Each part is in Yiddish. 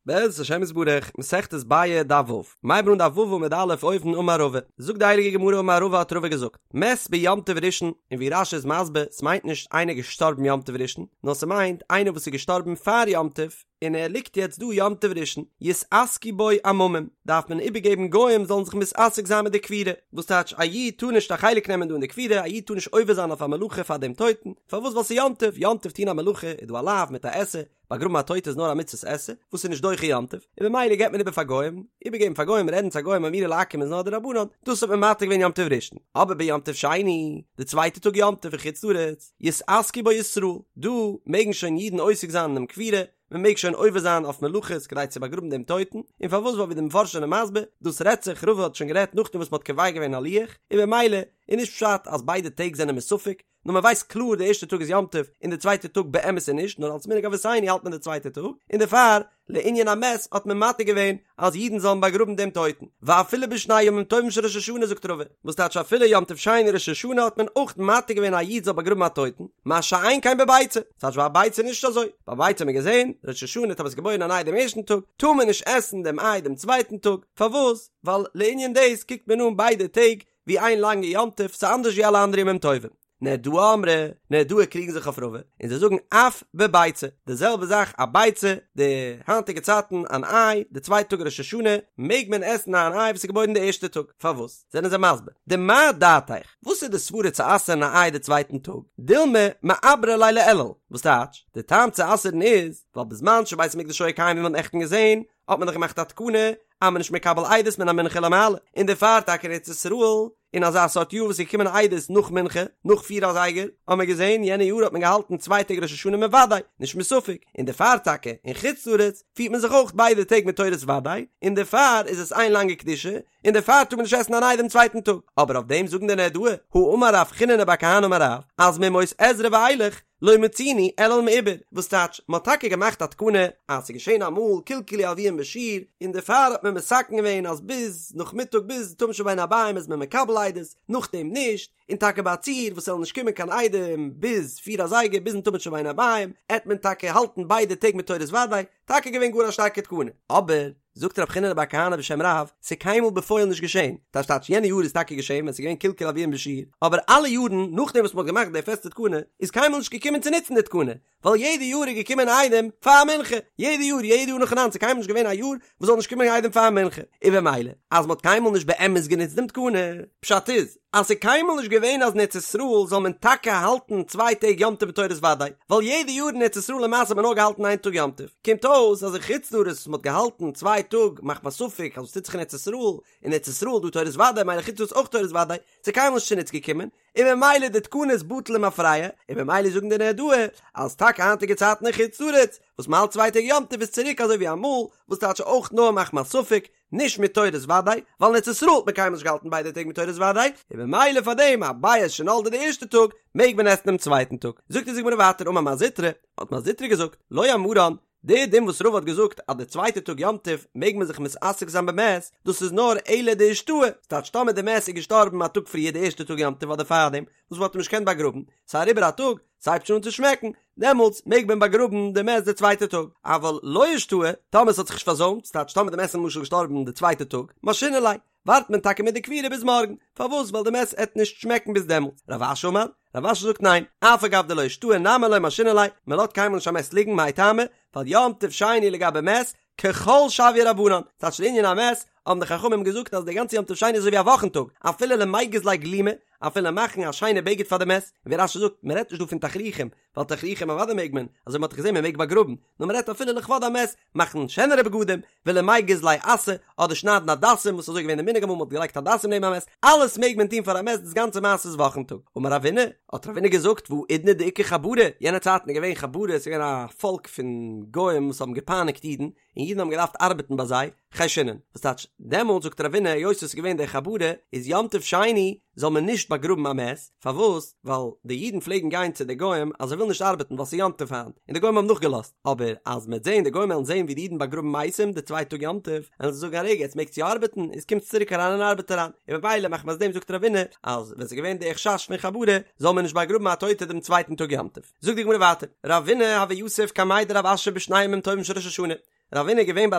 בעזרת השם יתברך, מסכת ביעא דף ו', מ'הייבן אן דף ו' עמוד א' אויבן אמר רבא, זאגט די הייליגע גמרא אמר רבא האט רבא געזאגט, מת ביום טוב ראשון, און ווי רש"י איז מסביר, ס'מיינט נישט איינער געשטארבן יום טוב ראשון, נאר ס'מיינט איינער וואס איז געשטארבן פאר יום טוב, און ער ליגט יעצט דא יום טוב ראשון, יתעסקו בו עממים, דארף מען איבערגעבן גוים זאלן זיך מתעסק זיין מיט די קבורה, וואס טייטש א איד טאר נישט א חלק נעמען דא אין די קבורה, א איד טאר נישט עובר זיין אויף א מלאכה פאר דעם טויטן, פארוואס ווייל ס'איז יום טוב, יום טוב טון א מלאכה איז דא א לאו מיט א עשה, באגראבן א טויטע איז נאר א מצוות עשה, וואס איז נישט דוחה יום טוב, און במילא געבט מען איבער פאר גוים, איבערגעבן פאר גוים, רעדן צו א גוים אמירה לעכו"ם איז נאר דרבנן, דאס האט מען מתיר געווען יום טוב ראשון, אבער ביום טוב שני, די צווייטע טאג יום טוב אין חוץ לארץ, יתעסקו בו ישראל, דא מעגן שוין אידן עוסק זיין אינעם קבורה, מען מעג שוין עובר זיין אויף מלאכות כדי צו באגראבן דעם טויטן, און פארוואס ווייל ווי די מפרשים זענען מסביר, דאס רעדט זיך, רבא האט שוין גערעדט נאכדעם וואס מען האט קובע געווען א לוח, און במילא איז נישט פשט אז ביידע טעג זענען מסופק, נאר מען ווייסט קלאר די ערשטע טאג איז יום טוב און די צווייטע טאג באמת איז נישט נאר אלס מנהג אבותינו האלט מען די צווייטע טאג און דערפאר לענין המת האט מען מתיר געווען אז אידן זאלן באגראבן דעם טויטן ואפילו בשני ימים טובים של ראש השנה זאגט רבא וואס טייטש אפילו יום טוב שני ראש השנה האט מען אויך מתיר געווען א איד זאל באגראבן א טויטן מה שאין כן בביצה טייטש ביי א ביצה איז נישט אזוי ביי ביצה האט מען געזען ראש השנה טאמער ס'איז געבוירן אן איי דעם ערשטן טאג טאר מען נישט עסן דעם איי דעם צווייטן טאג פארוואס ווייל לענין דאס קוקט מען אן ביידע טעג ווי איין לאנגע יום טוב, ס'איז אנדערש ווי אלע אנדערע ימים טובים. נהרדעי אמרי, נהרדעי קריגן זיך אויף רבא, און זיי זאגן אף בביצה, די זעלבע זאך א ביצה, די היינטיגע צייטן אן איי, די צווייטע טאג ראש השנה, מעג מען עסן אן איי וואס איז געבוירן די ערשטע טאג, פארוואס? זענען זיי מסביר, דמאי דעתיך, וואס איז די סברה צו אסר'ן א איי די צווייטן טאג, דילמא מעברא ליה לאלול, וואס טייטש, די טעם צו אסר'ן איז, ווייל בזמן שבית המקדש היה קיים ווי מ'האט נעכטן געזען, האט מען דאך געמאכט א תקנה אז מען נישט מקבל עדות מן המנחה ולמעלה, און דערפאר טאקע אין ארץ ישראל, אין אזא סארט יאר וואס איז געקומען עדות נאך מנחה, נאך פיר אזייגער, האט מען געזען יענע יאר האט מען געהאלטן צוויי טעג ראש השנה מוודאי, נישט מספק, און דערפאר טאקע אין חוץ לארץ פירט מען זיך אויך ביידע טעג מיט תורת וודאי, און דערפאר איז עס איין לאנגע קדושה, און דערפאר טאר מען נישט עסן אן איי דעם צווייטן טאג, אבער אויף דעם זאגן די נהרדעי, הא אמר רב חיננא בר כהנא אמר רב, אז מימות עזרא ואילך, לא מצינו אלול מעובר, וואס טייטש, מ'האט טאקע געמאכט א תקנה אז ס'איז געשען אמאל קלקלו הלוים בשיר, און דערפאר האט מען מתקן געווען אז ביז נאכמיטאג ביז תמיד של בין הערביים איז מען מקבל עדות, נאכדעם נישט, און טאקע ביי א ציור וואס ס'זאל נישט קומען קיין עדים ביז פיר אזייגער ביזן תמיד של בין הערביים, עט מען טאקע האלטן ביידע טעג מיט תורת וודאי, טאקע געווען גאר א שטארקע תקנה, אבער. זאגט רב חיננא בר כהנא בשם רב, ס'איז קיינמאל בפועל נישט געשען, טייטש טייטש יענע יאר איז טאקע געשען ווען ס'איז געווען קלקול הלוים בשיר, אבער אלע יארן נאכדעם וואס מ'האט געמאכט די פעסטע תקנה, איז קיינמאל נישט געקומען צו נוצן די תקנה, ווייל יעדע יאר איז געקומען עדים פאר מנחה, יעדע יאר, יעדע יאר נאכאנאנד, ס'איז קיינמאל נישט געווען א יאר וואס זאל נישט קומען עדים פאר מנחה, און במילא אז מ'האט קיינמאל נישט באמת גענוצט דעם תקנה, פשט איז, אז ס'איז קיינמאל נישט געווען אז אין ארץ ישראל זאל מען טאקע האלטן צוויי טעג יום טוב בתורת וודאי, ווייל יעדע יאר אין ארץ ישראל למעשה האט מען נאר געהאלטן איין טאג יום טוב, קומט אויס אז אין חוץ לארץ וואס מ'האט געהאלטן צוויי טאג מחמת ספק אז וואס טוט זיך אין ארץ ישראל, אין ארץ ישראל דא תורת וודאי מילא חוץ לארץ אויך תורת וודאי, ס'איז קיינמאל נישט צוניץ געקומען, און ממילא די תקנה איז בטל למפרע, און ממילא זאגן די נהרדעי אז טאקע היינטיגע צייטן אין חוץ לארץ וואס מ'האלט צוויי טעג יום טוב איז צוריק אזוי ווי אמאל, וואס טייטש אויך נאר מחמת ספק, נישט מיט תורת וודאי, ווייל אין ארץ ישראל האט מען קיינמאל נישט געהאלטן ביידע טעג מיט תורת וודאי, און ממילא פאר דעם א ביעא שנולדה די ערשטע טאג, מעג מען עסן דעם צווייטן טאג. זאגט אונז די גמרא ווייטער אמר מר זוטרא, האט מר זוטרא געזאגט, לא אמרן, די דין וואס רבא האט געזאגט אז די צווייטע טאג יום טוב מעג מען זיך מתעסק זיין במת, דאס איז נאר אלא דאישתהי, ס'טייטש טאמער די מת איז געשטארבן א טאג פריער די ערשטע טאג יום טוב אדער פארדעם, וואס מ'האט אים נישט געקענט באגראבן, ס'איז אריבער א טאג, ס'הייבט שוין אן צו שמעקן, דעמאלטס מעג מען באגראבן די מת די צווייטע טאג, אבל לא אישתהי, טאמער ס'האט זיך נישט פארזוימט, ס'טייטש טאמער די מת איז למשל געשטארבן די צווייטע טאג, משהינן ליה, ווארט מען טאקע מיט די קבורה ביז מארגן, פארוואס ווייל די מת עט נישט שמעקן ביז דעמאלטס, רב אשי אמר, רב אשי זאגט ניין, אף על גב דלא אישתהי נמי לא משהינן ליה, מען לאזט קיינמאל נישט א מת ליגן מאי טעמא, ווייל יום טוב שני לגבי מת, כחול שויוה רבנן, ס'טייטש לענין המת, האבן די חכמים געזאגט אז די גאנצע יום טוב שני איז אזוי ווי א וואכן טאג, אפילו למיגז ליה גלימא, אפילו מאכן א שיינע בגד פאר די מת, און ווי רש"י זאגט, מען רעדט נישט דא פון תכריכים, ווייל תכריכים אוודאי מעג מען, אזוי מען האט דאך געזען מען מעג באגראבן, נאר מען רעדט אפילו לכבוד המת, מאכן שענערע בגדים, ולמיגז ליה אסא, אדער שניידן הדסים, וואס איז אזוי געווען די מנהג אמאל מען האט געלייגט הדסים נעבן א מת, אלעס מעג מען טון פאר א מת, דאס גאנצע מעשה איז וואכן טאג. אמר רבינא, האט רבינא געזאגט, והאידנא דאיכא חברי, יענע צייטן איז געווען חברי, עס איז געווען א פאלק פון גוים וואס האבן געפייניגט אידן, און אידן האבן געדארפט ארבעטן ביי זיי, חיישינן, וואס טייטש, דעמאלט זאגט רבינא היות עס איז געווען די חברי, איז יום טוב שני זאל מען נישט באגראבן א מת, פארוואס? ווייל די אידן פלעגן גיין צו די גוים אז זיי ווילן נישט ארבעטן ווייל ס'איז יום טוב היינט, און די גוים האבן נאכגעלאזט, אבער אז מ'עט זען די גוים וועלן זען ווי די אידן באגראבן מתים די צווייטע טאג יום טוב, וועלן זיי זאגן א רגע עטס מעגטס יא ארבעטן, איז קומטס צוריק אריין אין ארבעט אריין, און ממילא מחמת דעם זאגט רבינא אז ווען ס'איז געווען די חשש פון חברי זאל מען נישט באגראבן א טויטע דעם צווייטן טאג יום טוב. זאגט די גמרא ווייטער, רבינא הוה יתיב קמיה דרב אשי בשני ימים טובים של ראש השנה. רבינא איז געווען ביי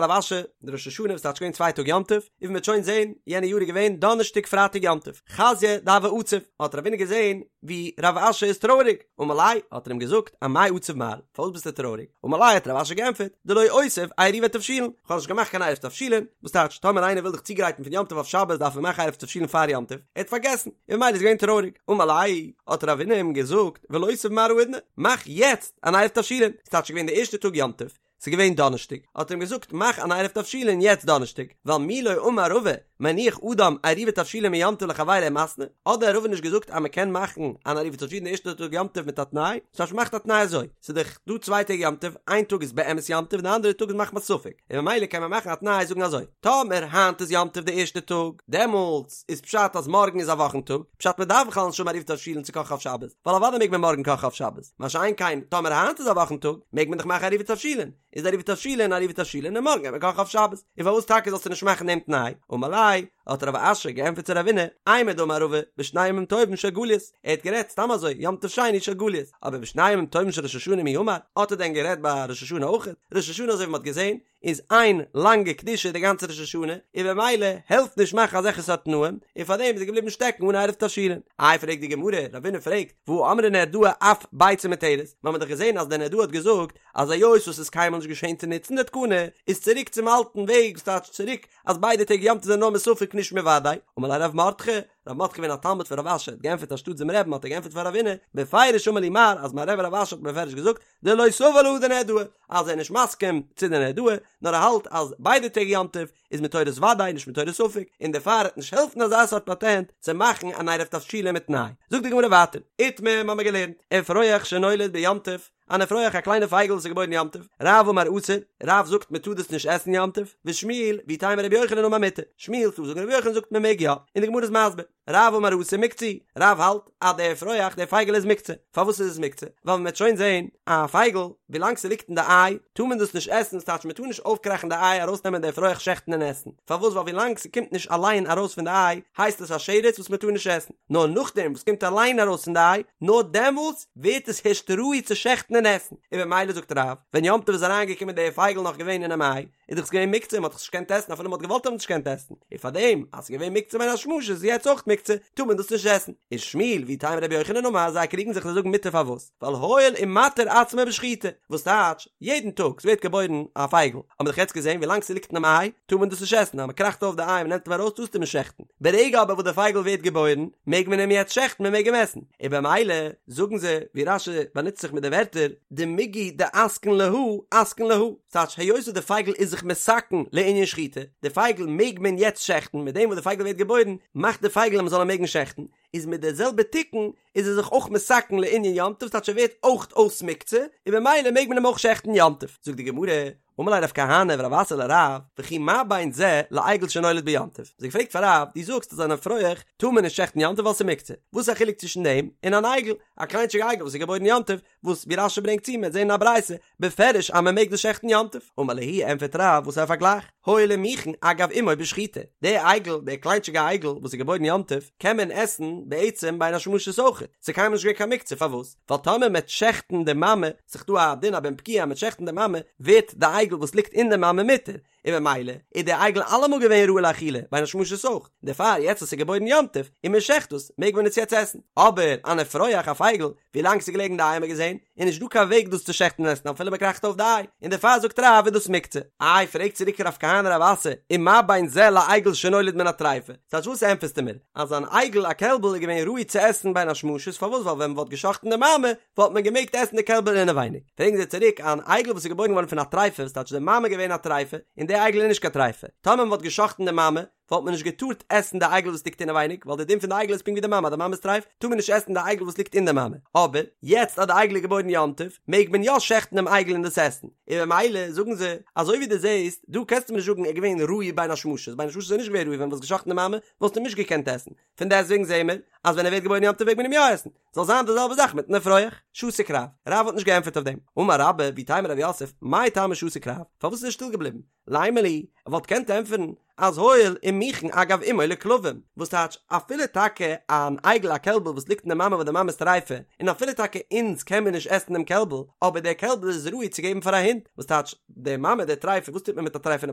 רב אשי די ראש השנה וואס טייטש געווען צוויי טאג יום טוב, און ווי מ'וועט שוין זען, יענע יאר איז געווען דאנערשטאג פרייטאג יום טוב, חזייה דהוה עציב, האט רבינא געזען ווי רב אשי איז טרויעריג, אמר ליה, האט ער אים געזאגט, אמאי עציב מר, פארוואס ביסטו טרויעריג? אמר ליה האט רב אשי געענטפערט, דלא אותיב עירובי תבשילין, כ'האב נישט געמאכט קיין עירוב תבשילין, וואס טייטש, טאמער איינער וויל זיך צוגרייטן פון יום טוב אויף שבת דארף ער מאכן עירוב תבשילין פאר יום טוב, ער האט פארגעסן, און ממילא איז געווען טרויעריג, אמר ליה, האט רבינא אים געזאגט, ולותיב מר האידנא, מאך יעצט אן עירוב תבשילין, ס'טייטש ס'איז געווען די ערשטע טאג יום טוב, ס'איז געווען דאנערשטאג, האט ער אים געזאגט מאך אן עירוב תבשילין יעצט דאנערשטאג, ווייל מי לא אמר רבא מניח אדם עירובי תבשילין מיום טוב לחבירו ומתנה, האט דען רבא נישט געזאגט אז מ'קען מאכן אן עירובי תבשילין די ערשטע טאג יום טוב מיט א תנאי, ס'טייטש מ'מאכט א תנאי אזוי, ס'איז דאך דא צוויי טעג יום טוב, איין טאג איז באמת יום טוב און די אנדערע טאג איז מחמת ספק, און ממילא קען מען מאכן א תנאי זאגן אזוי, טאמער היינט איז יום טוב די ערשטע טאג, דעמאלטס איז פשט אז מארגן איז א וואכן טאג, פשט מ'דארף בכלל נישט האבן עירובי תבשילין צו קאכן אויף שבת, ווייל אוודאי מעג מען מארגן קאכן אויף שבת. מה שאין כן, טאמער היינט איז א וואכן טאג, מעג מען דאך מאכן עירובי תבשילין, איז עירובי תבשילין עירובי תבשילין און מארגן גייט מען קאכן אויף שבת, און פארוואס טאקע זאלסטו נישט מאכן דעם תנאי? אמר ליה, האט רב אשי געענטפערט צו רבינא, אימר דאמר רבא, בשני ימים טובים של גליות, ער האט גערעדט סתם אזוי, יום טוב שני של גליות, אבער בשני ימים טובים של ראש השנה מי אמר, האט ער דען גערעדט ביי ראש השנה אויכעט? ראש השנה אזוי ווי מען האט געזען, איז איין לאנגע קדושה די גאנצע ראש השנה, און במילא העלפט נישט מאכן אזעלכע סארט תנאים, און פארדעם איז ער געבליבן שטעקן אן עירוב תבשילין. איי פרעגט די גמרא, רבינא פרעגט, והא אמרה נהרדעא אף ביצה מותרת, מיר האבן דאך געזען אז די נהרדעא האט געזאגט אז היות וואס איז קיינמאל נישט געשען צו נוצן די תקנה, איז צוריק צום אלטן וועג, וואס טייטש צוריק אז ביידע טעג יום טוב זענען נאר מספק נישט מוודאי, אמר ליה רב מרדכי, רב מרדכי געווען א תלמיד פון רב אשי האט געענטפערט אנשטאט דעם רבי'ן האט ער געענטפערט פאר רבינא, בפירוש אמר לי מר אז מיין רבי רב אשי האט בפירוש געזאגט דלא סבר להא דנהרדעא, אז ער איז נישט מסכים צו די נהרדעא, נאר ער האלט אז ביידע טעג יום טוב איז מתורת וודאי נישט מתורת ספק, און דערפאר וועט נישט העלפן אזא סארט פאטענט צו מאכן אן עירוב תבשילין מיט תנאי. זאגט די גמרא ווייטער, איתמר מ'האמיר געלערנט, אפרוח שנולד ביום טוב, אן אפרוח א קליינע פייגל וואס איז געבוירן יום טוב, רב אמר אסור, רב זאגט מען טאר דאס נישט עסן יום טוב, ושמואל, ואיתימא רבי יוחנן אמר מותר, שמואל ס'דא זאגן רבי יוחנן זאגט מען מעג יא, און די גמרא איז מסביר. רב אמר אסור מוקצה, רב האלט אז דער אפרוח דער פייגל איז מוקצה, פארוואס איז עס מוקצה? ווייל מען וועט שוין זען א פייגל ווילאנג ס'ליגט אין די איי טאר מען דאס נישט עסן, ס'טייטש מען טאר נישט אויפקראכן די איי ארויסנעמען די אפרוח שעכטן און עסן, פארוואס ווייל ווילאנג ס'קומט נישט אליין ארויס פון די איי הייסט עס א שרץ וואס מען טאר נישט עסן, נאר נאכדעם וואס קומט אליין ארויס פון די איי נאר דעמאלטס ווערט עס הערשט ראוי צו שעכטן און עסן, און במילא זאגט רב ווען יום טוב איז אריינגעקומען דער פייגל נאך געווען אינעם איי, איז דאך עס געווען מוקצה, מען האט דאך נישט געקענט עסן אפילו מען האט געוואלט האט מען נישט געקענט עסן, און פארדעם אז עס איז געווען מוקצה בין השמשות איז יעצט אויך מוקצה, טאר מען דאס נישט עסן. און שמואל ואיתימא רבי יוחנן אמר זיי קריגן זיך זיי זאגן מותר פארוואס? ווייל הואיל ומתיר עצמו בשחיטה, וואס טייטש, יעדן טאג ס'ווערט געבוירן א פייגל, האט מען דאך יעצט געזען ווילאנג ס'ליגט אינעם איי טאר מען דאס נישט עסן, אז מען קראכט אויף די איי און מען נעמט אים ארויס טארסטו אים נישט שעכטן, ברגע אבער וואס די פייגל ווערט געבוירן מעג מען אים יעצט שעכטן מען מעג אים עסן, און במילא זאגן זיי ווי רש"י באנוצט זיך מיט די ווערטער דמיגו דאתקין להא אתקין להא. ס'טייטש היות וואס די פייגל איז זיך מתקן לענין שחיטה, די פייגל מעג מען יעצט שעכטן, מיט דעם וואס די פייגל ווערט געבוירן מאכט די פייגל אז מ'זאל אים מעגן שעכטן, איז מיט די זעלבע תיקון איז ער זיך אויך מתקן לענין יום טוב, ס'טייטש ער ווערט אויך אויס מוקצה, און במילא מעג מען אים אויך שעכטן יום טוב. זאגט די גמרא, אמר ליה רב כהנא ורב אסי לרב, וכי מה בין זה לעגל שנולד ביום טוב? זיי געפרעגט פאר רב, דו זאגסט אז אן אפרוח טאר מען נישט שעכטן יום טוב ווייל ס'איז מוקצה, וואס איז א חילוק צווישן דעם און אן עגל, א קליינטשיגע עגל וואס איז געבוירן יום טוב, וואס ווי רש"י ברענגט צו מ'וועט זען אין א ברייתא בפירוש אז מען מעג דאס שעכטן יום טוב, אמר להו ענפערט רב וואס איז א פארגלייך, הואיל ומיכן אגב אמו בשחיטה, די עגל, די קליינטשיגע עגל וואס איז געבוירן יום טוב, קען מען עסן בעצם בין השמשות אויך, ס'איז קיינמאל נישט געווען קיין מוקצה, פארוואס? ווייל טאמער מ'עט שעכטן די מאמע, ס'איז דא א דין א בן פקיעא אז מ'עט שעכטן די מאמע, ווערט די עגל וואס ליגט אין די מאמע מותר, און במילא איז דער עגל אלעמאל געווען ראוי לאכילה, בין השמשות אויך, דערפאר יעצט וואס ס'איז געבוירן יום טוב, און מען שעכט דאס, מעג מען עס יעצט עסן. אבער אן אפרוח א פייגל, ווי לאנג ס'איז געלעגן אין די איי האט מען געזען, איז נישט דא קיין וועג דאס צו שעכטן און עסן אפילו מען קראכט אויף די איי, און דערפאר זאגט רב איז דאס מוקצה. איי פרעגט צוריק רב כהנא רב אסי, ומה בין זה לעגל שנולד מן הטריפה, ס'טייטש וואס ענטפערסטו מיר, אז אן עגל א קעלבל איז געווען ראוי צו עסן בין השמשות, פארוואס ווייל ווען מען וואלט געשאכטן די מאמע, וואלט מען געמעגט עסן די קעלבל אינעווייניג. פרעגן זיי צוריק, אן עגל וואס איז געבוירן געווארן פון א טריפה, וואס טייטש די מאמע געווען א טריפה, און די עגל איז נישט קיין טריפה. טאמער מען וואלט געשאכטן די מאמע, וואלט מען נישט געטארט עסן די עגל וואס ליגט אינעווייניג, ווייל די דין פון די עגל איז פונקט ווי די מאמע, אז די מאמע איז טרייף, טאר מען נישט עסן די עגל וואס ליגט אין די מאמע. אבער, יעצט אז די עגל איז געבוירן יום טוב, מעג מען יא שעכטן דעם עגל און דאס עסן. און במילא, זאגן זיי, אזוי ווי דו זעסט, דא קענסטו מיר נישט זאגן ער איז געווען ראוי בין השמשות, בין השמשות איז ער נישט געווען ראוי, ווען מ'וואלט געשאכטן די מאמע, וואלסטו אים נישט געקענט עסן. פון דעסטוועגן זעען מיר, אז ווען ער ווערט געבוירן יום טוב מעג מען אים יא עסן. זאל זיין די זעלבע זאך מיטן אפרוח. שתק רב. רב האט נישט געענטפערט אויף דעם. אמר רבה, ואיתימא רב יוסף, מאי טעמא שתק רב? פארוואס איז ער שטיל געבליבן? לימא להו, ער וואלט געקענט ענטפערן. אז הואיל ומוכן אגב אמו לכלבים, וואס טייטש אפילו טאקע אן עגל א קעלבל וואס ליגט אין די מאמע וואס די מאמע איז טריפה, און אפילו טאקע אונז קען מיר נישט עסן דעם קעלבל, אבער דער קעלבל איז ראוי צו געבן פאר א הונט, וואס טייטש די מאמע די טריפה, וואס טוט מען מיט א טריפה'נע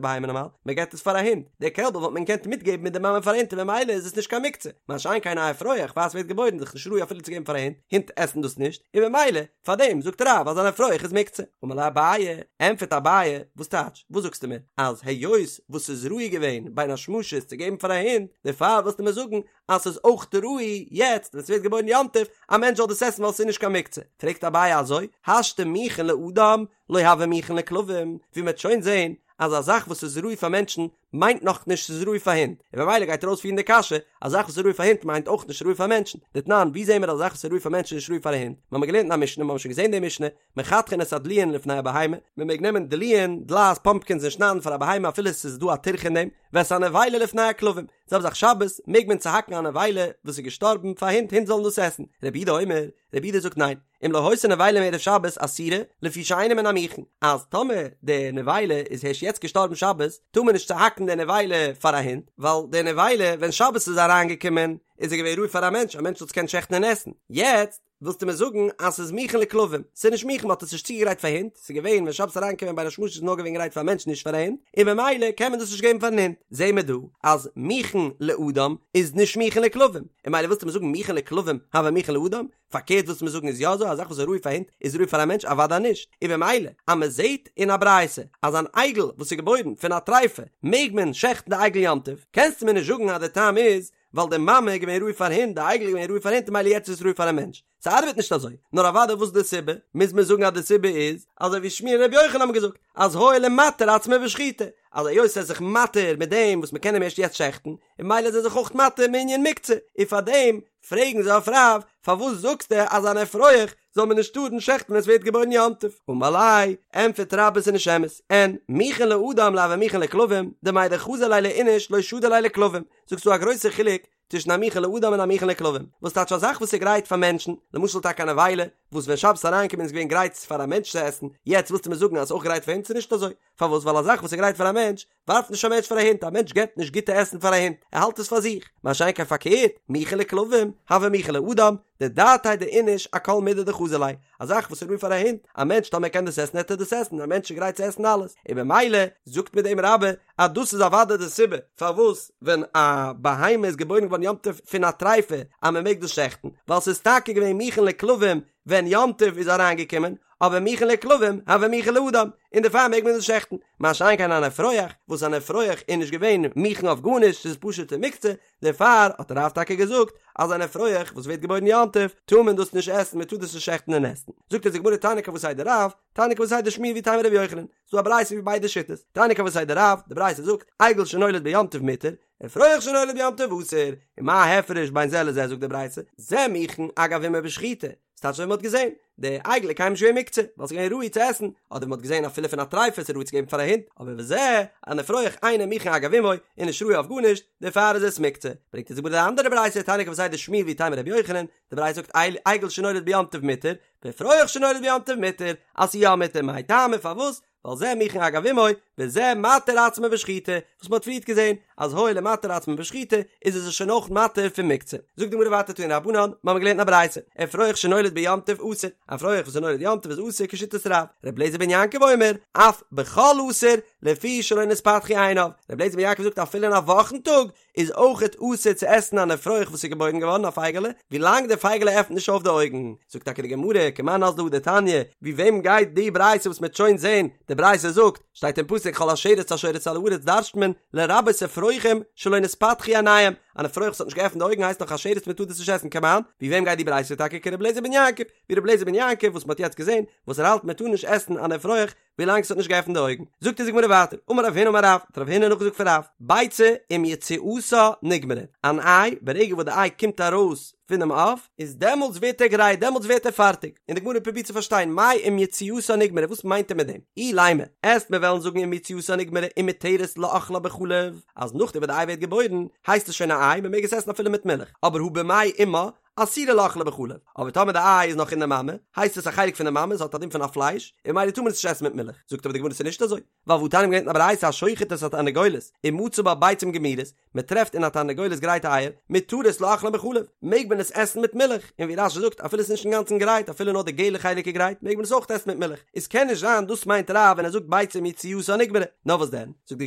בהמה נארמאל? מען געבט עס פאר א הונט, דער קעלבל וואלט מען געקענט מיטגעבן מיט די מאמע פאר א הונט און ממילא איז עס נישט קיין מוקצה, מה שאין כן א אפרוח פאר עס ווערט געבוירן איז דאך נישט ראוי אפילו צו געבן פאר א הונט, הינט עסן דאס נישט, און ממילא פאר דעם זאגט רב אז אן אפרוח איז מוקצה. אמר ליה אביי, ענטפערט אביי, וואס טייטש? וואס זאגסטו מיר? אז היות וואס ס'איז ראוי געווען בין השמשות צו געבן פאר א הונט, דערפאר ווילסטו מיר זאגן אז ס'איז אויך ראוי יעצט ווען ס'ווערט געבוירן יום טוב א מענטש זאל דאס עסן ווייל ס'איז נישט קיין מוקצה? פרעגט אביי אזוי, השתא מוכן לאדם לא הוי מוכן לכלבים, ווי מ'וועט שוין זען אז א זאך וואס איז ראוי פאר מענטשן מיינט נאך נישט ס'איז ראוי פאר הינט, און ממילא גייט ער אויספירן די קשיא, א זאך וואס איז ראוי פאר הינט מיינט אויך נישט ראוי פאר מענטשן. דתנן, ווי זעהן מיר אז א זאך וואס איז ראוי פאר מענטשן איז נישט ראוי פאר א הונט? מ'האמיר געלערנט אין א משנה, מ'האמיר שוין געזעהן די משנה, מחתכין את הדלועין לפני הבהמה, מ'מעג נעמען דלועין, דלעת, פאמפקינס און שניידן פאר א בהמה אפילו ס'איז דא א טירחא אין דעם, ואת הנבילה לפני הכלבים, זעלבע זאך שבת, מעג מען צוהאקן א נבילה וואס איז געשטארבן פאר הינט, הינט זאלן דאס עסן. רבי יהודה אומר, רבי יהודה זאגט ניין. אם לא היתה נבילה מערב שבת אסורה, לפי שאינה מן המוכן, אז טאמער די נבילה איז הערשט יעצט געשטארבן שבת, טאר מען נישט צוהאקן די נבילה פאר א הונט, ווייל די נבילה ווען שבת איז אריינגעקומען איז ער געווען ראוי פאר א מענטש, א מענטש זאל עס קענען שעכטן און עסן, יעצט ווילסטו מיר זאגן אז ס'איז מוכן לכלבים, ס'איז נישט מוכן מ'האט עס נישט צוגעגרייט פאר הינט, ס'איז געווען ווען שבת איז אריינגעקומען בין השמשות איז נאר געווען גרייט פאר א מענטש נישט פאר א הונט, און ממילא קען מען דאס נישט געבן פארן הונט, זעהן מיר דא אז מוכן לאדם איז נישט מוכן לכלבים, און ממילא ווילסטו מיר זאגן מוכן לכלבים הוי מוכן לאדם? פארקערט ווילסטו מיר זאגן איז יא אזוי א זאך וואס איז ראוי פאר הינט איז ראוי פאר א מענטש? אוודאי נישט, און במילא אז מען זעט אין א ברייתא אז אן עגל וואס איז געבוירן פון א טריפה מעג מען שעכטן די עגל יום טוב, קענסטו מיר נישט זאגן אז די טעם איז ווייל די מאמע איז געווען ראוי פאר הינט די עגל איז געווען ראוי פאר הינט און ממילא יעצט איז עס ראוי פאר א מענטש, ס'ארבעט נישט אזוי, נאר אוודאי וואס איז די סיבה? מוז מען זאגן אז די סיבה איז אזוי ווי שמואל און רבי יוחנן האבן געזאגט אז הואיל ומתיר עצמו בשחיטה, אז היות ער איז זיך מתיר מיט דעם וואס מען קען אים ערשט יעצט שעכטן, און ממילא איז ער זיך אויך מתיר מענין מוקצה, און פארדעם פרעגן זיי אויף רב, פארוואס זאגסטו אז אן אפרוח זאל מען נישט טארן שעכטן ווען עס ווערט געבוירן יום טוב? אמר ליה, ענטפערט רבה ס'איז נישט אמת, אין מוכן לאדם לא הוי מוכן לכלבים, דמאי דחזי ליה לאיניש לא שדי ליה לכלבים, זאגסט ס'דא א גרויסע חילוק צווישן א מוכן לאדם און א מוכן לכלבים, וואס טייטש א זאך וואס איז גרייט פאר מענטשן, למשל טאקע א נבילה, וואס ווען שבת איז אריינגעקומען איז געווען גרייט פאר א מענטש צו עסן, יעצט ווילסטו מיר זאגן אז ס'איז אויך גרייט פאר הינט? ס'איז נישט אזוי, פארוואס? ווייל א זאך וואס איז גרייט פאר א מענטש, ווארפט נישט א מענטש פאר א הונט, א מענטש געבט נישט גוטע עסן פאר א הונט, ער האלט עס פאר זיך, מה שאין כן פארקערט, מוכן לכלבים, הוי מוכן לאדם, דדעתיה דאיניש אכל מידי דחזי ליה, א זאך וואס איז ראוי פאר א הונט, א מענטש טאמער קען דאס עסן העט ער דאס עסן, א מענטש איז גרייט צו עסן אלעס, און במילא זאגט מיט דעם רבה אז דאס איז אוודאי די סיבה פארוואס ווען א בהמה איז געבוירן געווארן יום טוב פון א טריפה אז מען מעג דאס שעכטן, ווייל ס'איז טאקע געווען מוכן לכלבים ווען יום טוב איז אריינגעקומען, אבער מוכן לכלבים הוי מוכן לאדם, און דערפאר מעג מען דאס שעכטן, מה שאין כן אן אפרוח, וואס אן אפרוח איז נישט געווען מוכן אויף גארנישט, ס'איז פשוטע מוקצה, דערפאר האט רב טאקע געזאגט אז אן אפרוח וואס ווערט געבוירן יום טוב טאר מען דאס נישט עסן, מען טאר דאס נישט שעכטן און עסן. זאגט אונז די גמרא תניא כוותיה דרב, תניא כוותיה דשמואל ואיתימא רבי יוחנן, ס'דא א ברייתא ווי ביידע שיטות, תניא כוותיה דרב, די ברייתא זאגט, עגל שנולד ביום טוב מותר, אפרוח שנולד ביום טוב אסור, ומה ההפרש בין זה לזה זאגט די ברייתא, זה מוכן אגב אמו בשחיטה, ס'טייטש אזוי ווי מ'האט געזען, די עגל איז קיינמאל נישט געווען מוקצה, ווייל ס'איז געווען ראוי צו עסן, אדער מ'האט געזען אפילו פון א טריפה ס'איז ראוי צו געבן פאר א הונט, אבער וזה, אן אפרוח אינו מוכן אגב אמו, איז נישט ראוי אויף גארנישט, דערפאר איז עס מוקצה. ברענגט אונז די גמרא די אנדערע ברייתא, תניא כוותיה דשמואל ואיתימא רבי יוחנן, די ברייתא זאגט עגל שנולד ביום טוב מותר, ואפרוח שנולד ביום טוב מותר, אז ס'איז יא מותר, מאי טעמא פארוואס? ווייל זה מוכן אגב אמו, וזה מתיר עצמו בשחיטה, וואס מ'האט פריערט געזען אז הואיל ומתיר עצמו בשחיטה, איז עס שוין אויך מתיר פון מוקצה. זאגט די גמרא ווייטער תנו רבנן, מ'האמיר געלערנט אין א ברייתא, אפרוח שנולד ביום טוב אסור, א אפרוח וואס איז נולד יום טוב איז אסור כשיטת רב, ר' אליעזר בן יעקב אומר, אף בחול אסור, לפי שלא נתפתחו עיניו, ר' אליעזר בן יעקב זאגט אפילו אין א וואכן טאג איז אויכעט אסור צו עסן אן אפרוח וואס איז געבוירן געווארן א פייגעלע, ווילאנג די פייגעלע עפנט נישט אויף די אויגן. זאגט טאקע די גמרא, כמאן אזלא הא דתניא, ווי וועם גייט די ברייתא וואס מ'עט שוין זען, די ברייתא זאגט, שטייט אין פסוק כל השרץ השורץ על הארץ דרש'ט מען, לרבות אפרוחים שלא נתפתחו עיניהם, אן אפרוח וואס האט נישט געעפנט די אויגן הייסט נאך א שרץ מ'טאר דאס נישט עסן כמאן, ווי וועם גייט די ברייתא טאקע כר' אליעזר בן יעקב, ווי ר' אליעזר בן יעקב וואס מ'האט יעצט געזען, וואס ער האלט מ'טאר נישט עסן אן אפרוח, ווילאנג ס'האט נישט געעפנט די אויגן. זאגט אונז די גמרא ווייטער, אמר רב הונא אמר רב, האט רב הונא נאכגעזאגט פון רב, ביצה עם יציאתה נגמרה, אן איי, ברגע וואס די איי קומט ארויס פונעם עוף, איז דעמאלטס ווערט ער גרייט, דעמאלטס ווערט ער פארטיג, און די גמרא פרובירט צו פארשטיין, מאי עם יציאתה נגמרה, וואס מיינט ער מיט דעם? אילימא, עסט מיר וועלן זאגן עם יציאתה נגמרה ומותרת לאכלה בחלב, אז נאכדעם וואס די איי ווערט געבוירן, הייסט עס שוין א איי, מ'מעג עס עסן אפילו מיט מילך, אבער הא במעי אמה, אסורה לאכלה בחלב, אבער טאמער די איי איז נאך אין די מאמע, הייסט עס א חלק פון די מאמע, עס האט א דין פון א פלייש, און ממילא טאר מען עס נישט עסן מיט מילך. זאגט אבער די גמרא ס'איז נישט אזוי, ווייל והתניא מ'האט געלערנט אין א ברייתא השוחט את התרנגולת ומצא בה ביצים גמורות, מען טרעפט אין א תרנגולת גרייטע אייער, מותרות לאכלן בחלב, מעג מען עס עסן מיט מילך, און ווי רש"י זאגט אפילו עס איז נישט אינגאנצן גרייט אפילו נאר די געלע חלק איז גרייט מעג מען עס אויך עסן מיט מילך, איז קען נישט זיין דאס מיינט רב ווען ער זאגט ביצה אם יציאתה נגמרה, נאר וואס דען, זאגט די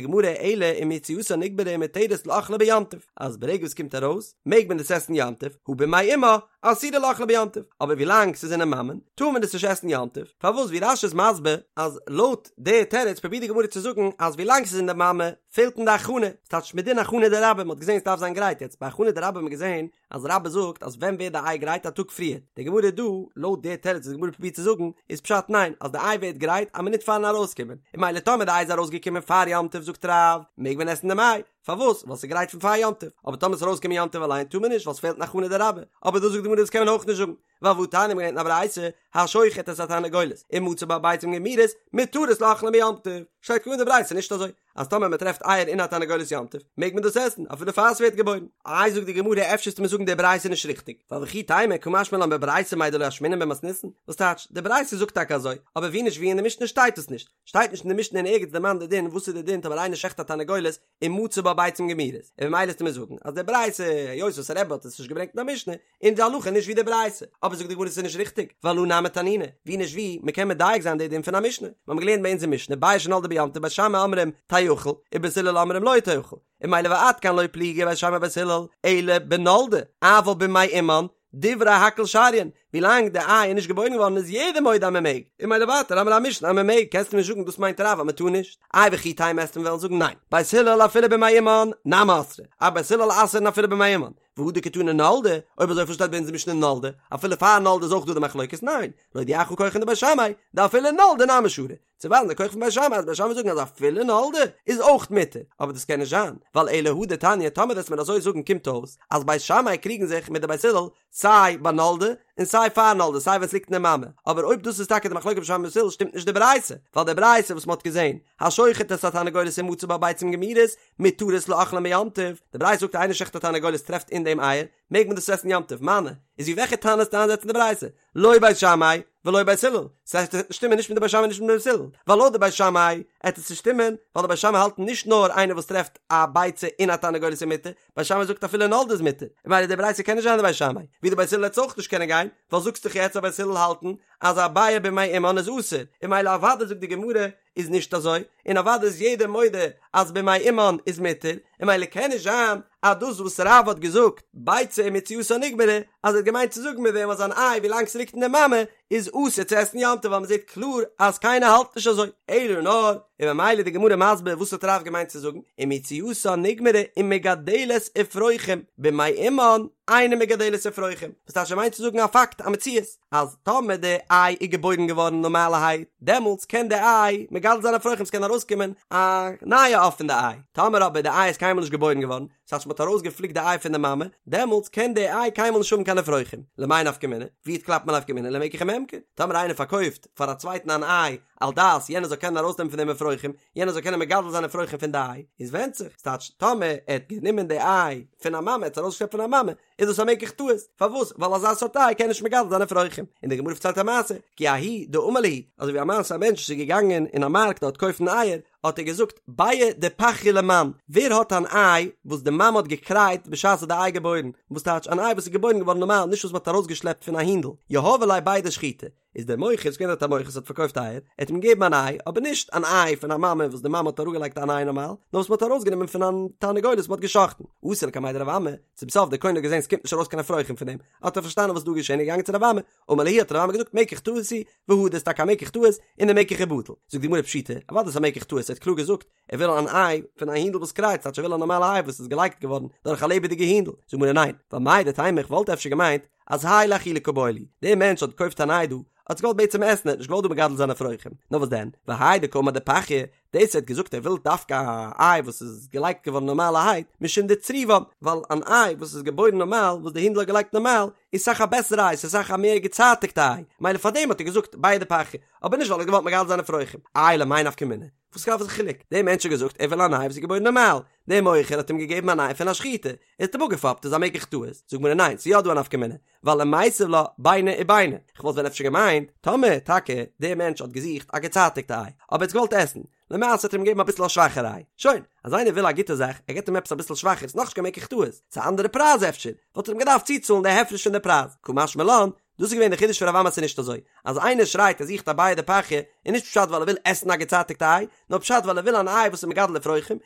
גמרא אלא אם יציאתה נגמרה ומותרת לאכלה ביום טוב, אז ברגע וואס קומט ארויס מעג מען עס עסן יום טוב, הא במעי אמה אסורה לאכלה ביום טוב, אבער ווילאנג ס'איז אינעם מאמען טאר מען עס נישט עסן יום טוב, פארוואס ווי רש"י איז מסביר אז לויט די תירוץ פרובירט די גמרא צו זאגן אז ווילאנג ס'איז אין די מאמע פעלט אין די הכנה, ס'טייטש מדין הכנה דרבה, מ'האט געזען ס'דארף זיין גרייט, יעצט ביי הכנה דרבה האט מען געזען אז רבה זאגט אז ווען ווערט די איי גרייט א טאג פריער, די גמרא דא, לויט די תירוץ וואס די גמרא פרובירט צו זאגן, איז פשט ניין, אז די איי ווערט גרייט א מינוט פארן ארויסקומען, און ממילא טאמער די איי איז ארויסגעקומען פאר יום טוב זאגט רב, מעג מען עסן דעם איי, פארוואס? ווייל ס'איז גרייט פון פאר יום טוב, אבער טאמער ס'איז ארויסגעקומען יום טוב אליין טאר מען נישט ווייל ס'פעלט אין הכנה דרבה, אבער דא זאגט די גמרא דאס קען מען אויך נישט זאגן, ווייל והתניא מ'האט געלערנט אין א ברייתא, השוחט את התרנגולת, ומצא בה ביצים גמורות, מותרות לאכלן ביום טוב, שטייט קלאר אין די ברייתא נישט אזוי, אז טאמער מען טרעפט אייער אין א תרנגולת יום טוב, מעג מען דאס עסן, אפילו פאר ס'ווערט געבוירן. איי זאגט די גמרא אפשר וועסטו מיר זאגן די ברייתא איז נישט ריכטיג, ווייל וכי תימא קא משמע לן בברייתא מאי דלא אשמעינן במתניתין, וואס טייטש, די ברייתא זאגט טאקע אזוי, אבער ווי נישט ווי אין די משנה שטייט עס נישט, שטייט נישט אין די משנה אין ערגעץ דערמאנט די דין וואס איז די דין טאמער איינער שעכט א תרנגולת ומצא בה ביצים גמורות, און ממילא וועסטו מיר זאגן אז די ברייתא היות וואס רבי האט עס נישט געברענגט אין א משנה, איז די הלכה נישט ווי די ברייתא, אבער זאגט די גמרא ס'איז נישט ריכטיג, ווייל הא נמי תנינא, ווי נישט ווי, מ'קען מדייק זיין די דין פון א משנה, מיר האבן געלערנט ביי אונז אין משנה ביצה שנולדה ביום טוב בית שמאי אומרים תאכל, ובית הלל אומרים לא תאכל, און ממילא ועד כאן לא פליגי בית שמאי ובית הלל, אלא בנולדה, אבל במעי אמן, דברי הכל שריין, ווילאנג די איי איז נישט געבוירן געווארן איז יעדער מודה אז מען מעג, און ממילא ווייטער האמיר א משנה אז מען מעג, קענסטו נישט זאגן דאס מיינט רב אז מען טאר נישט, איי וכי תימא וועסטו מיר וועלן זאגן ניין, בית הלל אפילו במעי אמן, נמי אסרי, אז בית הלל אסר'ן אפילו במעי אמן, והא דקתני נולדה, אויב אזוי פארוואס שטייט ביי אונז אין משנה נולדה, אפילו פאר נולדה איז אויך דא די מחלוקת, ניין, להודיעך כחן דבית שמאי, דאפילו נולדה נמי שרי, צו ווייזן די כח פון בית שמאי אז בית שמאי זאגן אז אפילו נולדה איז אויך מותר, אבער דאס קען נישט זיין, ווייל אלא הא דתניא טאמער וועסט מיר אזוי זאגן קומט אויס אז בית שמאי קריגן זיך מיט די בית הלל סיי ביי נולדה און סיי פאר נולדה סיי ווען ס'ליגט אין די מאמע, אבער אויב דאס איז טאקע די מחלוקת בית שמאי בית הלל שטימט נישט די ברייתא, ווייל די ברייתא וואס מ'האט געזען השוחט את התרנגולת ומצא בה ביצים גמורות מותרות לאכלן ביום טוב, די ברייתא זאגט איינער שעכט א תרנגולת טרעפט אין דעם אייער, מעג מען דאס עסן יום טוב, מני, איז ווי וועלכע תנא וועסטו איינזעצן די ברייתא? לא בית שמאי ולא בית הלל, ס'הייסט עס וועט נישט שטימען נישט מיט די בית שמאי און נישט מיט די בית הלל, ווייל לויט די בית שמאי עט עס נישט שטימען, ווייל די בית שמאי האלטן נישט נאר איינער וואס טרעפט א ביצה אין א תרנגולת איז מותר, בית שמאי זאגט אפילו נולדה איז מותר, און ממילא די ברייתא קען נישט זיין די בית שמאי, ווי די בית הלל עט עס אויך נישט קענען גיין, ווייל זאגסט דאך יעצט אז בית הלל האלטן אז א ביעא במעי אמן איז אסור, און ממילא אוודאי זאגט די גמרא איז נישט אזוי, און אוודאי איז יעדער מודה אז במעי אמן איז מותר, און ממילא קען נישט זיין אז דאס וואס רב האט געזאגט ביצה אם יציאתה נגמרה, אז ער האט געמיינט צו זאגן מיט דעם אז אן איי ווילאנג ס'ליגט אין די מאמע איז אסור צו עסן יום טוב ווייל מ'זעט קלאר אז קיינער האלט נישט אזוי, אלא נאר, און ממילא איז די גמרא מסביר וואס האט רב געמיינט צו זאגן, אם יציאתה נגמרה ומגדלת אפרוחים במעי אמן אינה מגדלת אפרוחים, וואס טייטש ער מיינט צו זאגן א פאקט א מציאות. אז טאמער די איי איז געבוירן געווארן נארמאלערהייט, דעמאלטס קען די איי מגדל זיין אפרוחים, ס'קען ארויסקומען א נייע עוף פון די איי, טאמער אבער די איי איז קיינמאל נישט געבוירן געווארן, ס'הייסט מ'האט ארויסגעפליקט די איי פון די מאמע, דעמאלטס קען די איי קיינמאל נישט האבן קיין אפרוחים, למאי נפקא מינה? ווי קלאפט מען נפקא מינה למקח וממכר? טאמער איינער פארקויפט פאר א צווייטן אן איי על דעת יענער זאל קענען ארויסנעמען פון דעם אפרוחים, יענער זאל קענען מגדל זיין אפרוחים פון די איי, איז ווענדט זיך, ס'טייטש טאמער ער האט גענומען די איי פון א מאמע, ער האט עס ארויסגעשלעפט פון א מאמע, איז דאס א מקח טעות, פארוואס? ווייל אזא סארט איי קען נישט מגדל זיין אפרוחים. און די גמרא פארציילט א מעשה, כי ההוא דאמר להו, אזוי ווי א מעשה א מענטש איז געגאנגען אין א מארקט דארט קויפן אייער, האט ער געזאגט, ביעא דפחיא למאן, ווער האט אן איי וואס די מאמע האט געקרייט בשעת האט די איי געבוירן, וואס טייטש אן איי וואס איז געבוירן געווארן נארמאל נישט וואס מען האט ארויסגעשלעפט פון א הינדל, יהבו ליה בידא שחיטה, איז דער מוכר, ס'איז געווען דארט א מוכר וואס האט פארקויפט אייער, ער האט אים געגעבן אן איי, אבער נישט אן איי פון א מאמע וואס די מאמע האט אראפגעלייגט אן איי נארמאל, נאר וואס מ'האט ארויסגענומען פון א תרנגולת וואס מ'האט גע'שחט'ן. אתא לקמיה דרב אמי, צום סוף דער קונה האט געזען ס'קומט נישט ארויס קיין אפרוחים פון דעם, האט ער פארשטאנען וואס איז דא געשען, איז געגאנגען צו רב אמי, אמר להו האט רב אמי געזאגט מקח טעות הוא, והדר, ס'איז טאקע א מקח טעות, און דער מקח איז בטל. זאגט די גמרא פשיטא, אוודאי איז א מקח טעות, ער האט קלאר געזאגט, ער וויל אן איי פון א הינדל וואס קרייט, ס'טייטש ער וויל א נארמאלע איי וואס איז געלייגט געווארן דורך א לעבעדיגע הינדל. זאגט די גמרא ניין, ווייל מהו דתימא איך וואלט אפשר געמיינט אז האי לאכילה קא בעי להו, דער מענטש האט געקויפט אן איי דא, האט עס געוואלט בעצם עסן, ער האט נישט געוואלט דא מגדל זיין אפרוחים, נאר וואס דען, והאי דקאמר דפחיא. דאס ער האט געזאגט ער וויל דווקא א איי וואס איז געלייגט געווארן נארמאלערהייט, משום דצריבן, ווייל אן איי וואס איז געבוירן נארמאל, וואס די הינדל האט געלייגט נארמאל, איז סאך א בעסערע איי, ס'איז סאך א מער געצייטיגטע איי, מילא פארדעם האט ער געזאגט ביעא דפחיא, אבער נישט ווייל ער האט געוואלט מגדל זיין אפרוחים. איי למאי נפקא מינה? וואס איז די חילוק? דער מענטש האט געזאגט ער וויל אן איי וואס איז געבוירן נארמאל, דער מוכר האט אים געגעבן אן איי פון א שחיטה, ער האט אים אפגעפאפט, איז א מקח טעות, זאגט די גמרא ניין, ס'איז יא דא א נפקא מינה, ווייל למיתב לה ביני וביני, כ'וואלט ווען אפשר געמיינט, טאמער טאקע דער מענטש האט געזוכט א געצייטיגטע איי, אבער ער האט געוואלט עסן, למעשה האט ער אים געגעבן אביסל א שוואכערע איי, שוין, אז איינער וויל א גוטע זאך, ער געבט אים עפעס אביסל שוואכער, ס'איז נאכנישט קיין מקח טעות, ס'איז א אנדערע פרייז אפשר, וואלט ער אים געדארפט צוצאלן די הפרש פון די פרייז, קא משמע לן, דאס איז געווען די חידוש פון רב אמי אז ס'איז נישט אזוי, אז איינער שרייט ער זוכט א ביעא דפחיא, איז נישט פשט ווייל ער וויל עסן א געצייטיגטע איי, נאר פשט ווייל ער וויל אן איי וואס איז מגדל אפרוחים,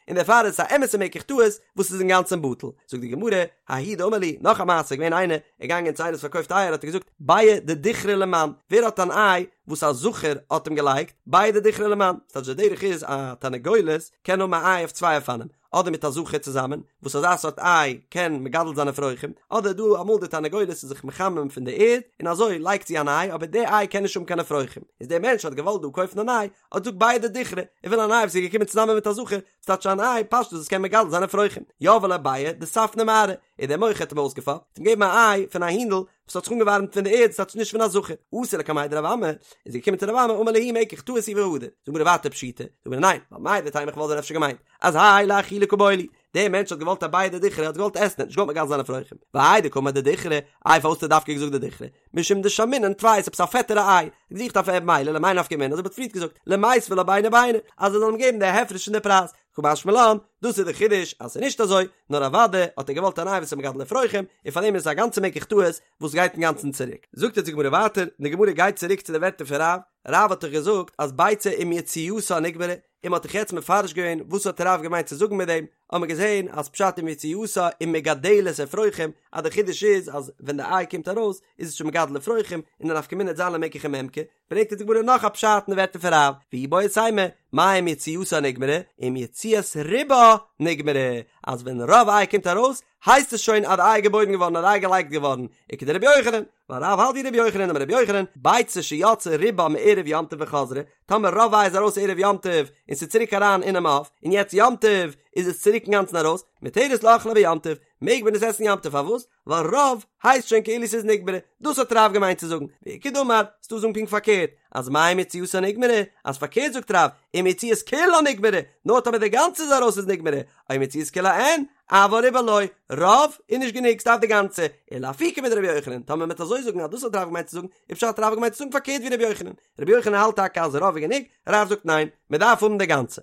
און דערפאר איז עס א אמת'ע מקח טעות וואס איז אינגאנצן בטל. זאגט די גמרא, ההוא דאמר להו, נאך א מעשה, געווען איינער, ער געגאנגען צו איינער וואס פארקויפט אייער האט ער געזאגט, ביעא דדוכרא למאן, ווער האט אן איי וואס א זכר האט אים געלייגט, ביעא דדוכרא למאן, ס'טייטש די דרך איז א תרנגולת קען האבן א איי אויף צוויי אופנים, אדער מיט א זכר צוזאמען, וואס אזא סארט איי קען מגדל זיין אפרוחים, אדער דא אמאל די תרנגולת איז זיך מחמם פון די ערד, און אזוי לייגט זי אן איי, אבער די איי קען נישט האבן קיין אפרוחים, איז דער מענטש האט געוואלט דא קויפן אן איי, האט געזאגט ביעא דדוכרא, ער וויל אן איי וואס איז געקומען צוזאמען מיט א זכר, ס'טייטש אן איי פשטות וואס קען מגדל זיין אפרוחים, יהביה ליה ביעא דספנא מארעא, און דער מוכר האט אים אויסגעפאפט, האט אים געגעבן א איי פון א הינדל וואס האט זיך אנגעווארעמט פון די ערד, ס'טייטש נישט פון א זכר, אתא לקמיה דרב אמי, איז ער געקומען צו רב אמי, אמר להו מקח טעות הוא והדר, זאגט די גמרא ווייטער פשיטא, זאגט די גמרא ניין, ווייל מהו דתימא איך וואלט ווען אפשר געמיינט, אז האי לאכילה קא בעי ליה, דער מענטש האט געוואלט א ביעא דדוכרא, האט געוואלט עסן, ער האט נישט געוואלט מגדל זיין אפרוחים, והאי דקאמר דדוכרא, איי פארוואס האט ער דווקא געזאגט דדוכרא, משום דשמינן טפי עפעס א פעטערע איי, געזוכט אויף מילא למאי נפקא מינה, אזוי ווי מ'האט פריערט געזאגט, למיתבה לה ביני וביני, אז ער זאל אים געבן די הפרש אין די פרייז, קא משמע לן, דאס איז די חידוש אז ס'איז נישט אזוי, נאר אוודאי האט ער געוואלט אן איי וואס איז מגדל אפרוחים, און פאר דעם איז עס א גאנצע מקח טעות וואס גייט אינגאנצן צוריק. זאגט יעצט די גמרא ווייטער, און די גמרא גייט צוריק צו די ווערטער פון רב, רב האט דאך געזאגט אז ביצה עם יציאתה נגמרה, און מ'האט דאך יעצט מפרש געווען וואס האט רב געמיינט צו זאגן מיט דעם, האט מען געזען אז פשט עם יציאתה ומגדלת אפרוחים, אז די חידוש איז אז ווען די איי קומט ארויס איז עס שוין מגדל אפרוחים, און די נפקא מינה וועט זיין למקח וממכר, ברענגט אונז די גמרא נאך א פשט אין די ווערטער פון רב, ואיבעית אימא, מאי עם יציאתה נגמרה, עם יציאת רובה נגמרה, אז ווען רוב איי קומט ארויס, הייסט עס שוין אז די איי געבוירן געווארן אז די איי געלייגט געווארן, וכדרבי יוחנן, ווייל רב האלט ווי רבי יוחנן דאמר רבי יוחנן, ביצה שיצא רובה מערב יום טוב וחזרה, טאמער רוב איי איז ארויס ערב יום טוב און ס'איז צוריק אריין אינעם עוף, און יעצט יום טוב איז עס צוריק אינגאנצן ארויס, מותרת לאכלה ביום טוב, מעג מען עס עסן יום טוב, פארוואס? ווייל רוב הייסט שוין כאילו ס'איז נגמרה, דאס האט רב געמיינט צו זאגן, ואיכא דאמר, ס'דא זאגן פונקט פארקערט, אז מאי עם יציאתה נגמרה, אז פארקערט זאגט רב, עם יציאת כולה נגמרה, נאר טאמער די גאנצע איז ארויס איז נגמרה, או עם יציאת כולה אין, אבל רובה לא, רוב איז נישט גענוג ס'דארף די גאנצע, ולאפוקי מדרבי יוחנן, טאמער מ'וועט אזוי זאגן אז דאס האט רב געמיינט צו זאגן, איז פשט רב האט געמיינט צו זאגן פארקערט ווי רבי יוחנן, רבי יוחנן האלט טאקע אז רוב איז גענוג, רב זאגט ניין, מ'דארף האבן די גאנצע.